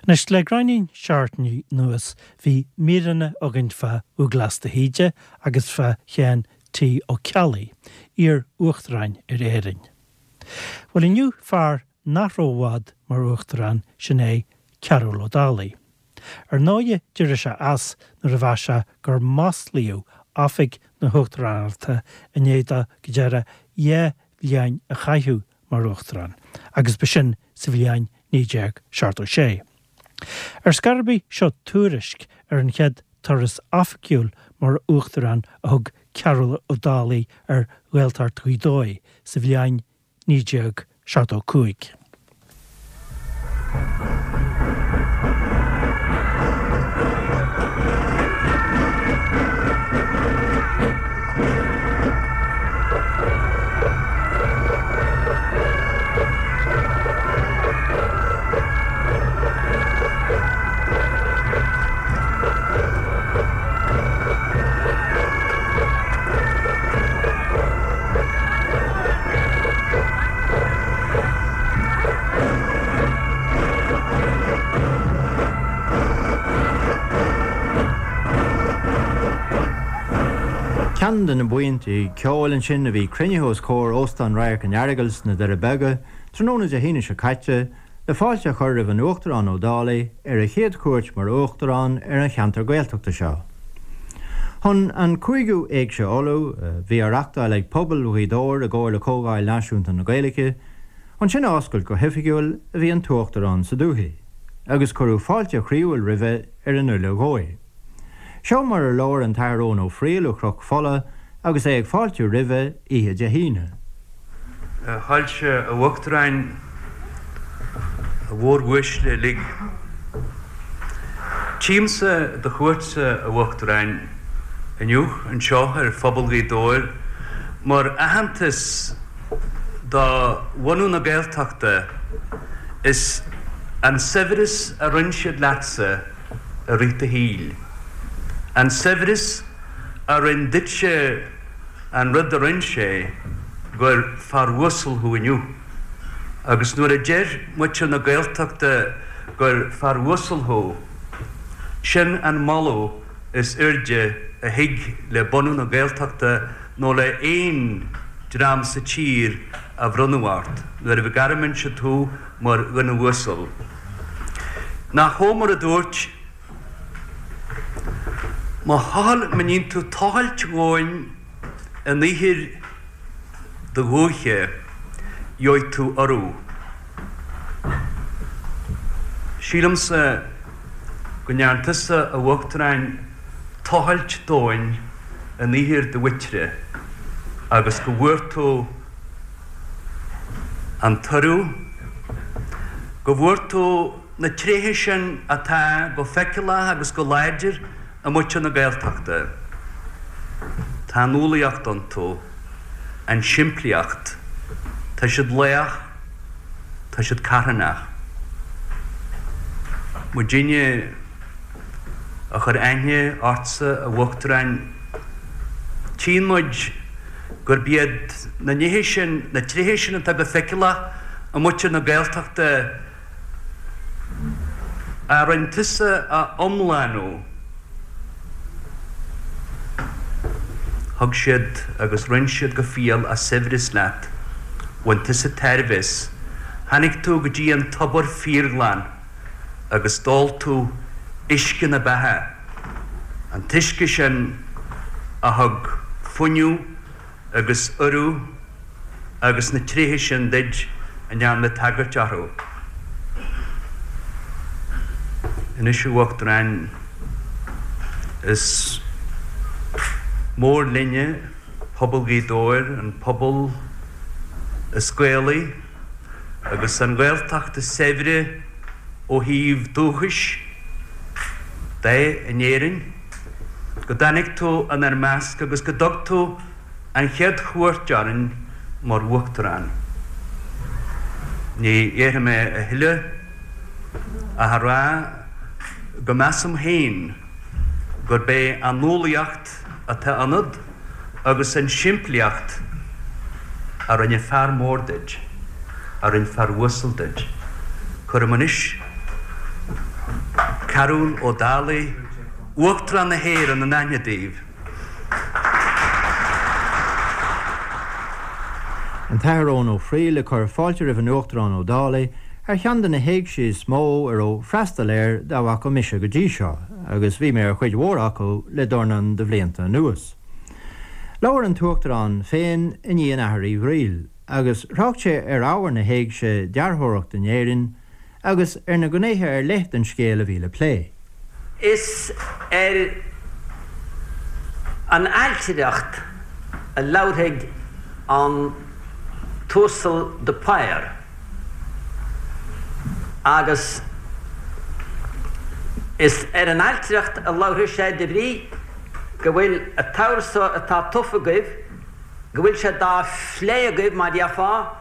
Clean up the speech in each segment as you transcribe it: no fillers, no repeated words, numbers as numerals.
Anois, le gráinnín seachtainí anuas bhí míreanna againn fá Dhúghlás de hÍde agus fá Sheán T. Ó Ceallaigh, iar-Uachtaráin ar Éirinn. Bhuel inniu fear nach raibh i bhfad mar Uachtarán, sin é Cearbhall Ó Dálaigh. Ar ndóighe d'éirigh sé as nuair a mheas sé gur maslaíodh oifig na hUachtaránachta i ndiaidh dó go díreach 2 bhliain a chaitheamh mar Uachtarán, agus b'shin sa bhliain 1976. Ar scor ar bith, seo tuairisc ar an chéad turas oifigiúil mar Uachtarán a thug Cearbhall Ó Dálaigh ar Ghaeltacht Ghaoth Dobhair sa bhliain 1975. Ceann de na buíonta ceoil ansin a bhí cruinnithe os comhair Óstán Radharc an Earagail sna Doirí Beaga tráthnóna Dé hAoine seo caite le fáilte a chur roimh an Uachtarán Ó Dálaigh ar a chéad chuairt mar Uachtarán ar an cheantar Gaeltachta seo. Chun an cúigiú Éigse Uladh, a bhí á reachtáil ag pobal Ghaoth Dobhair i gcomhar le Comhdháil Náisiúnta na Gaeilge, chun sin a oscailt go hoifigiúil a bhí an tUachtarán sa dúthaigh, agus cuireadh fáilte chroíúil roimhe ar an uile dhóigh. Seo mar a labhair an tAthair Eoin Ó Frighil ó Chnoc Fola agus é ag fáiltiú roimhe oíche Dé hAoine. A Shoilse, a Uachtaráin, a mhóruaisle uilig. Tchímse do chuairtse, a Uachtaráin, inniu anseo ar phobal Ghaoth Dobhair mar aitheantas do bhunú na Gaeltachta is an saibhreas a roinn siad leatsa i rith do shaoil. An saibhreas a rinn duitse an rud a rinn sé, gur fear uasal thú inniu. Agus nuair a deir muintir na Gaeltachta gur fear uasal thú, sin an moladh is airde a thig le bunú na Gaeltachta nó le aon dream sa tír a bhronnadh ort, nuair a ghairmeann siad thú mar dhuine uasal. Nach Hómar a dúirt, Má thochail, má níonn tú tochailt dhomhain in ithir do dhúiche, gheobhaidh tú urú. Sílimse go ndearn tusa, a Uachtaráin, tochailt domhain in ithir do mhuintire agus go bhfuair tú an t-urú, go bhfuair tú na tréithe sin atá go feiceálach agus go láidir i muintir na Gaeltachta. Tá an umhlaíocht iontu, an simplíocht, tá siad lách, tá siad carthanach. Muidinne a chuir aithne ortsa, a Uachtaráin, tchíonn muid gurb iad na nithe sin, na tréithe sin atá go feiceálach i muintir na Gaeltachta, a rinn tusa a iomlánú. Thug siad agus roinn siad go fial a saibhreas leat. Bhain tusa tairbhe as. Tháinig tú go dtí an tobar fíorghlan agus d'ól tú uisce na beatha, an t-uisce sin a thug fuinneamh agus urú agus na tréithe sin duit a ndearna mé tagairt orthu. Anois, a Uachtaráin, is mór linne, pobal Ghaoth Dobhair, an pobal is Gaelaí agus an Ghaeltacht is saibhre ó thaobh dúchais de in Éirinn, go dtáinig tú inár measc agus go dtug tú an chéad chuairt orainn mar Uachtarán. Ní dhéarfaidh mé a thuilleadh ach a rá go measaim féin gurb é an umhlaíocht atá ionat agus an simplíocht a rinne fear mór duit, a rinne fear uasal duit. Cuirim anois. Cearbhall Ó Dálaigh, Uachtarán na hÉireann in aithne daoibh. An tAthair Eoin Ó Fríl ag cur fáilte roimh an Uachtarán Ó Dálaigh ar cheann de na héigsí is mó a raibh freastal air dá bhfaca mise go dtí seo, agus bhí mé ar chuid mhór acu le dornán de bhlianta anuas. Labhair an tUachtarán féin i ndiaidh an Athar Uí Fhríl, agus thrácht sé ar ábhar na héigse dearthóireacht in Éirinn, agus ar na gnéithe ar leith den scéal a bhí le plé. Is ar an ailtireacht a labharfaidh an tUasal de Paor agus is ar an ailtireacht a labharfaidh sé de bhrí go bhfuil an t-ábhar so atá tofa agaibh, go bhfuil sé dá phlé agaibh, mar dhéarfá.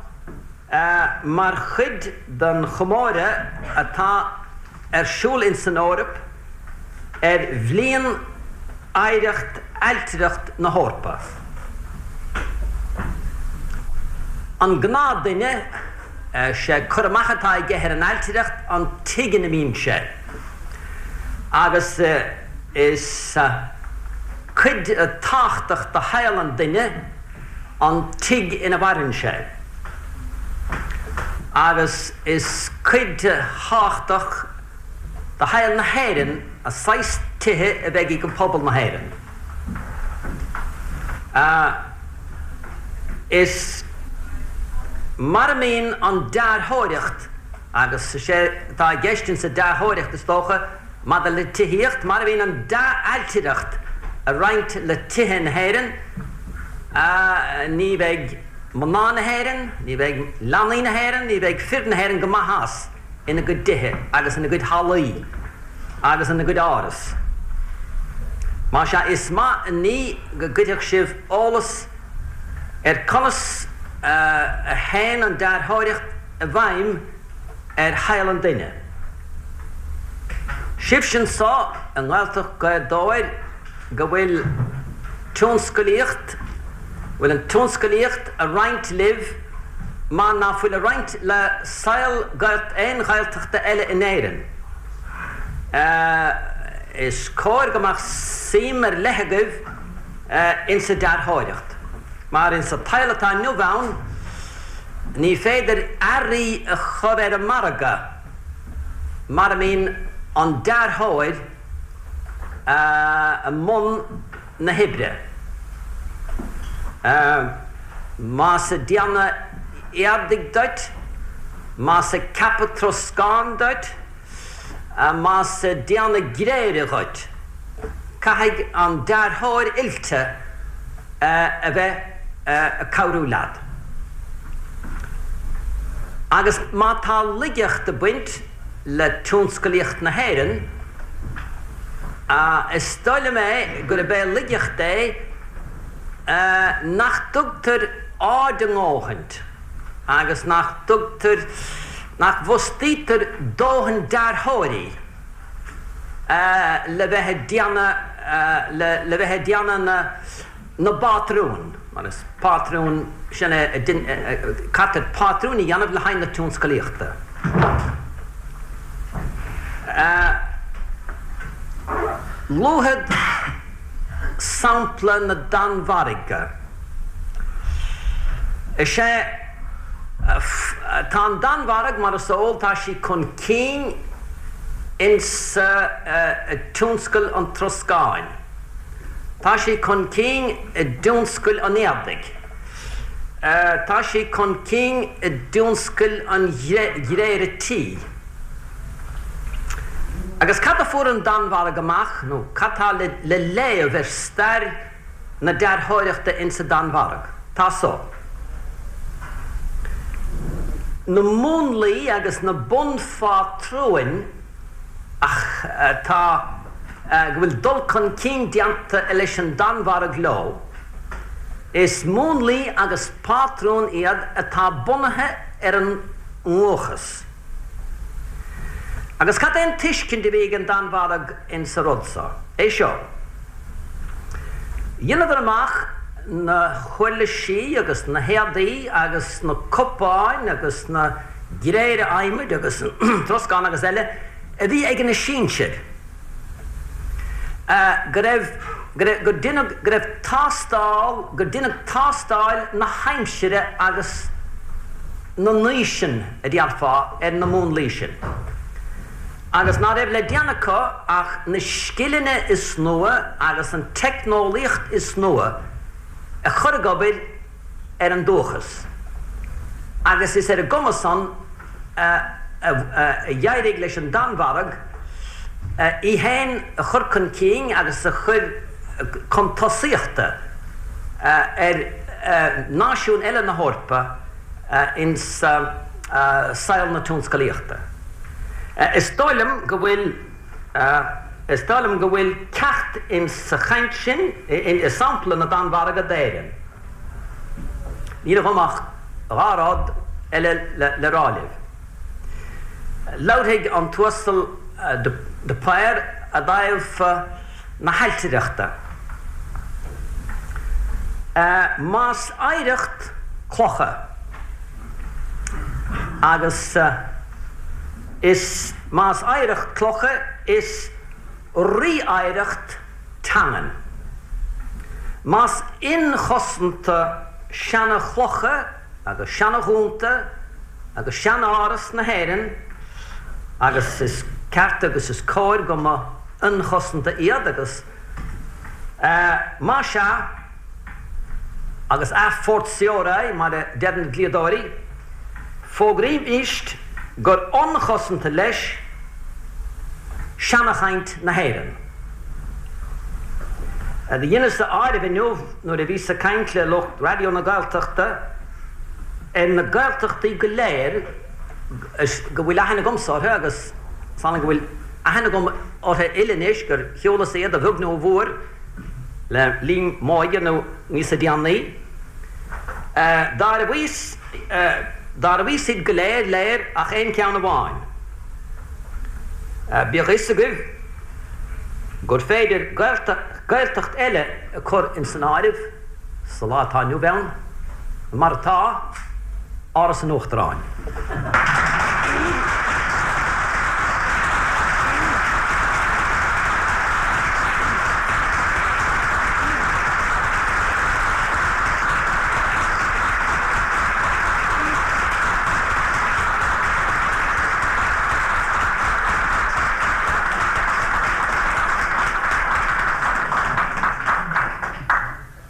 Mar chuid den chomóradh atá ar siúl ins an Eoraip ar Bhliain Oidhreacht Ailtireacht na hEorpa. An gnáthdhuine, sé cur amach atá aige ar an ailtireacht an tigh ina mbíonn sé agus is cuid tábhachtach de shaol an duine an tigh ina mhaireann sé, agus is cuid thábhachtach de shaol na hÉireann an saghas tithe a bheidh ag pobal na hÉireann. Is mar a mbíonn an dearthóireacht, agus is é atá i gceist insa dearthóireacht, is dócha, Maidir le tithíocht, mar a bhíonn an dea-ailtireacht a roinnt le tithe na hÉireann, ní bheidh mná na hÉireann, ní bheidh leanaí na hÉireann, ní bheidh fir na hÉireann go maith as ina gcuid dtithe agus ina gcuid hallaí agus ina gcuid áras. Más ea, is maith an ní go gcuirfeadh sibh eolas ar conas a théann an dearthóireacht i bhfeidhm ar shaol an duine. Sibhse anso i nGaeltacht Ghaoth Dobhair go bhfuil tionscalaíocht, bhfuil an tionscalaíocht a roinnt libh mar ná fuil a roinnt le saol aon Ghaeltachta eile in Éirinn. Is cóir go mbeadh suim ar leith agaibh insa dearthóireacht, mar insa tsaol atá inniu ann, Ní féidir earraí a chur ar an margadh mara mbíonn an dearthóir i mbun na hoibre. Más ag déanamh éadaigh duit, más ag ceapadh troscáin duit, más ag déanamh gréire dhuit, caithfidh an dearthóir oilte a bheith ag cabhrú leat. Agus má tá laigeacht ag baint le tionscalaíocht na hÉireann, is dóigh liom é gurb é laigeacht é nach dtugtar aird a ndóthaint agus nach dtugtar, nach bhfostaítear dóthain dearthóirí le bheith ag déanamh, le bheith ag déanamh na, na bpátrún, mar is pátrún, sin é, caithfear pátrúin a dhéanamh le haghaidh na tionscalaíochta. Luafad sampla na Danmhairge. Is é, tá an Danmhairg, mar is eol, tá sí chun cinn insa tionscal an troscáin. Tá sí chun cinn i dtionscal an éadaigh. Tá sí chun cinn i dtionscal an ghréire tí. Agus cad a fuair an Danmhairg amach, nó cad tá le léamh ar stair na dearthóireachta insa Danmhairg? Tá so. Na múnlaí agus na bunphátrúin atá, go bhfuil dul chun cinn déanta leis an Danmhairg leo, is múnlaí agus pátrúin iad atá bunaithe ar an ndúchas. Agus cad é an tuiscint a bhí ag an Danmhairg insa rud so? É seo. Dheineadar amach na huirlisí agus na héadaí agus na cupáin agus na gréire adhmaid agus troscán agus eile. a bhí ag na sinsir, go raibh, go raibh, gur deineadh, go raibh tástáil, gur deineadh tástáil na haimsire agus na n-aoiseann, a déarfá, ar na múnlaí sin. Agus ná raibh le déanamh acu ach na scileanna is nua agus an teicneolaíocht is nua a chur ag obair ar an dúchas. Agus is ar an gcuma san a d'éirigh leis an Danmhairg í féin a chur chun cinn agus a chur chun tosaíochta ar náisiúin eile na hEorpa ins saol na tionscalaíochta. Is dóigh liom go bhfuil Is dóigh liom go bhfuil ceacht ins sa chaint sin, i sampla na Danmhairge d'Éirinn. Níl agam ach dha rud eile le rá libh. Labharfaidh an tUasal de Paor i dtaobh na hailtireachta. Más oidhreacht clocha agus. Is más oidhreacht clocha is rí-oidhreacht teangan. Más inchosanta seana-chlocha agus seana-dhúnta agus sean-áras na hÉireann, agus is ceart agus is cóir go mba ionchosanta iad agus, más ea, agus a fortiori, mar a deir na dlíodóirí, fógraímíst gur ionchosanta leis seanachaint na hÉireann. Do dheineas-sa áireamh inniu nuair a bhíos ag caint le lucht Raidió na Gaeltachta ar na Gaeltachtaí go léir go bhfuil aithne agamsa orthu agus is annamh go bhfuil aithne agam orthu uile anois gur shiúlas iad a bheag nó a mhór le linn m'óige nó níosa déanaí. D'áireamhaíos, d'áireamhaíos iad go léir, léir ach aon cheann amháin. Bíodh a fhios agaibh gur féidir Gaeltacht eile a chur ins an áireamh sa lá atá inniu ann, mar atá, Áras an Uachtaráin.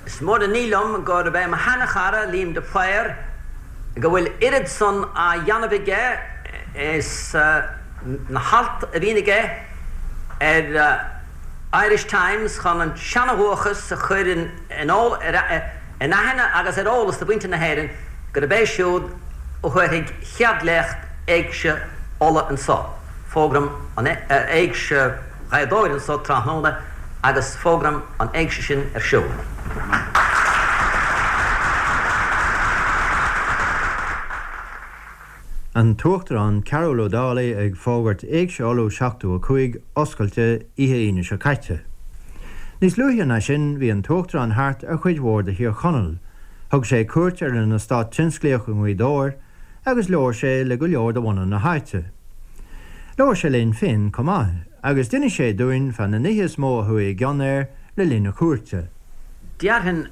Is mór an ní liom gurb é mo sheana-chara Liam de Paor go bhfuil oiread san á dhéanamh aige is na hailt a bhíonn aige ar Irish Times chun an seana-dhúchas a chur in aithne agus ar eolas do mhuintir na hÉireann gurb é siúd a thabharfaidh chéad léacht Éigse Uladh anso. Fógraim an Éigse Ghaoth Dobhair anso tráthnóna agus fógraim an Éigse sin ar siúl. An tUachtarán Cearbhall Ó Dálaigh ag fógairt Éigse Uladh 75 oscailte oíche Aoine seo caite. Níos luaithe ná sin bhí an tUachtarán thart ar chuid mhór de Thír Chonaill, thug sé cuairt ar an eastát tionsclaíoch i nGaoth Dobhair agus labhair sé le go leor de bhunadh na háite. Labhair sé linn féin chomh maith agus d'inis sé dúinn fá na nithe is mó a chuaigh i gcion air le linn a chuairte. Déarfainn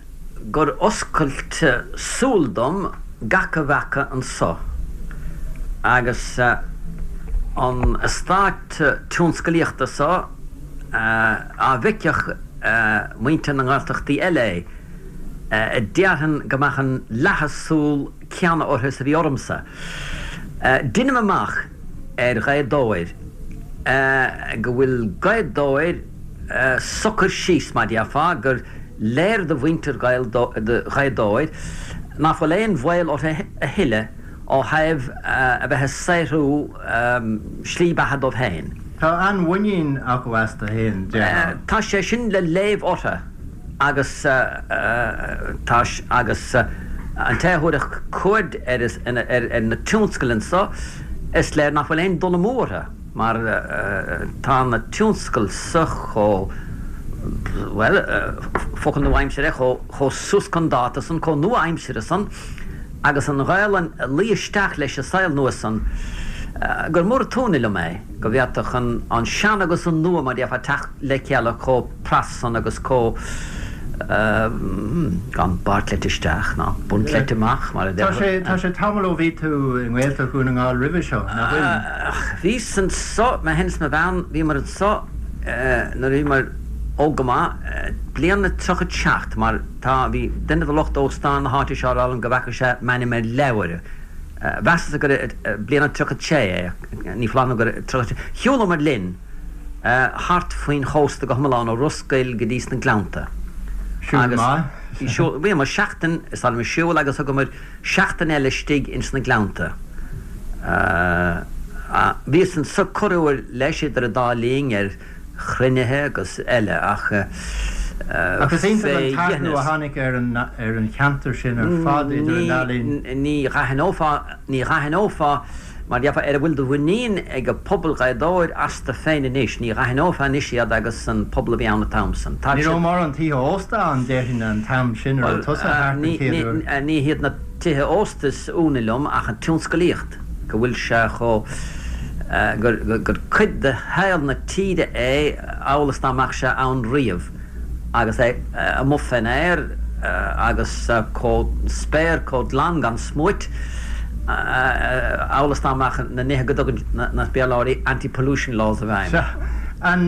gur oscailt súl dom gach a bhfaca anso agus an eastát tionscalaíochta so á bhfeicfeadh muintir na nGaeltachtaí eile é, déarfainn go mbeadh an leathadh súl céanna orthu is a bhí ormsa. Deinim amach ar Ghaoth Dobhair go bhfuil Gaoth Dobhair socair síos, mar déarfá, gur léir do mhuintir Ghaoth Dobhair ná fuil aon bhaol orthu a thuilleadh ó thaobh a bheith ag saothrú slí beatha dóibh féin. Tá an-mhuinín acu astu féin, déarfá. Tá sé sin le léamh orthu. Agus tá, agus an té a thabharfadh cuaird ar ar na tionscail anso, is léir nach bhfuil aon dul amú orthu, mar tá na tionscail so chomh, bhuel, focal nua-aimsire, chomh suas chun dáta san, chomh nua-aimseartha san, agus an Ghaelainn ag luí isteach leis an saol nua san. Gur mór an t-ionadh liom é go bhféadfadh an sean agus an nua, mar a déarfá, teacht le chéile chomh pras san agus chomh gan bairtleite isteach ná buntleite amach, mar a déarfá. Tá sé tamall ó bhí tú i nGaeltacht Dhún na nGall roimhe seo, nach bhfuil? Bhíos anso, mé féin is mo bhean, bhíomar anso nuair a bhíomar óg go maith, bliain a 37, mar tá, bhí duine de lucht óstáin na háite seo ag rá liom go bhfeaca sé m'ainm ar leabhar. Mheasas gur bliain a 36 é, ní foláir nó gur 36. Shiúlamar linn thart faoin chósta go hiomlán ó Ros Goill go dtí sna Gleannta. Siúl maith. Bhíomar seachtain is dóigh liom ag siúl agus thugamar seachtain eile istigh ins na Gleannta. Bhíos anso corruair leis idir an dá linn ar chruinnithe agus eile ach Ach is iontach an t-athrú a tháinig ar an ar an cheantar sin ar fad idir an dá linn. Ní dh'aithneofá, ní dh'aithneofá, mar déarfá, ar a bhfuil de mhuinín ag pobal Ghaoth Dobhair astu féin anois, ní dh'aithneofá anois iad agus an pobal a bhí ann an t-am san. Tá Ní raibh mórán tithe ósta ann, déarfainn, an t-am sin a raibh tusa thart an chéad uair. Ní hiad na tithe ósta is ionadh liom ach an tionscalaíocht. go bhfuil sé chomh, gur cuid de shaol na tíre é amhail is dá mbeadh sé ann riamh agus é amuigh fén aer agus chomh, spéir chomh glan gan smúit amhail is dá mbeadh na nithe go dtugann na Béarlóirí anti-pollution laws i bhfeidhm. Sea. An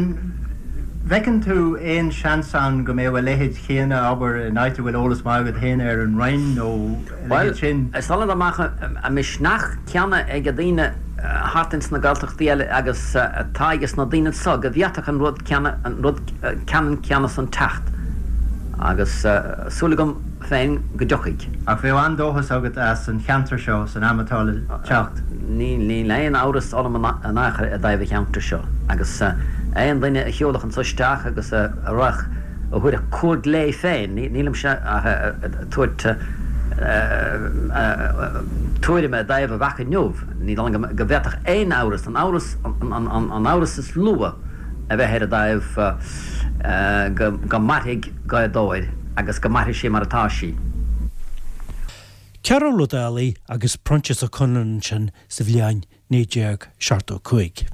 bhfeiceann tú aon seans ann go mbeadh a leithéid chéanna, abair, in áit a bhfuil eolas maith agat féin air, an Rinn nó. Bhuel, is dóigh liom dá mbeadh an misneach céanna ag daoine thart ins na Gaeltachtaí eile agus atá ages na daoine anso go bhféadfadh an rud céanna, an rud ceannann céanna san teacht. Agus súil agam féin go dtiocfaidh. Ach bheadh an-dóchas agat as an cheantar seo san am atá le teacht? Níl aon amhras orm in aon chor i dtaobh an cheantair seo. Agus aon duine a shiúlfadh anso isteach agus a raghadh, a thabharfadh cuaird léi féin, nílimse ach ag tabhairt tuairime i dtaobh a bhfaca inniu, ní dóigh liom go bhféadfadh aon amhras, an amhras, an amhras is lú a bheith air i dtaobh go mairfidh Gaoth Dobhair agus go mairfidh sí mar atá sí. Cearbhall Ó Dálaigh agus Proinsias Ó Conluain ansin sa bhliain 1975.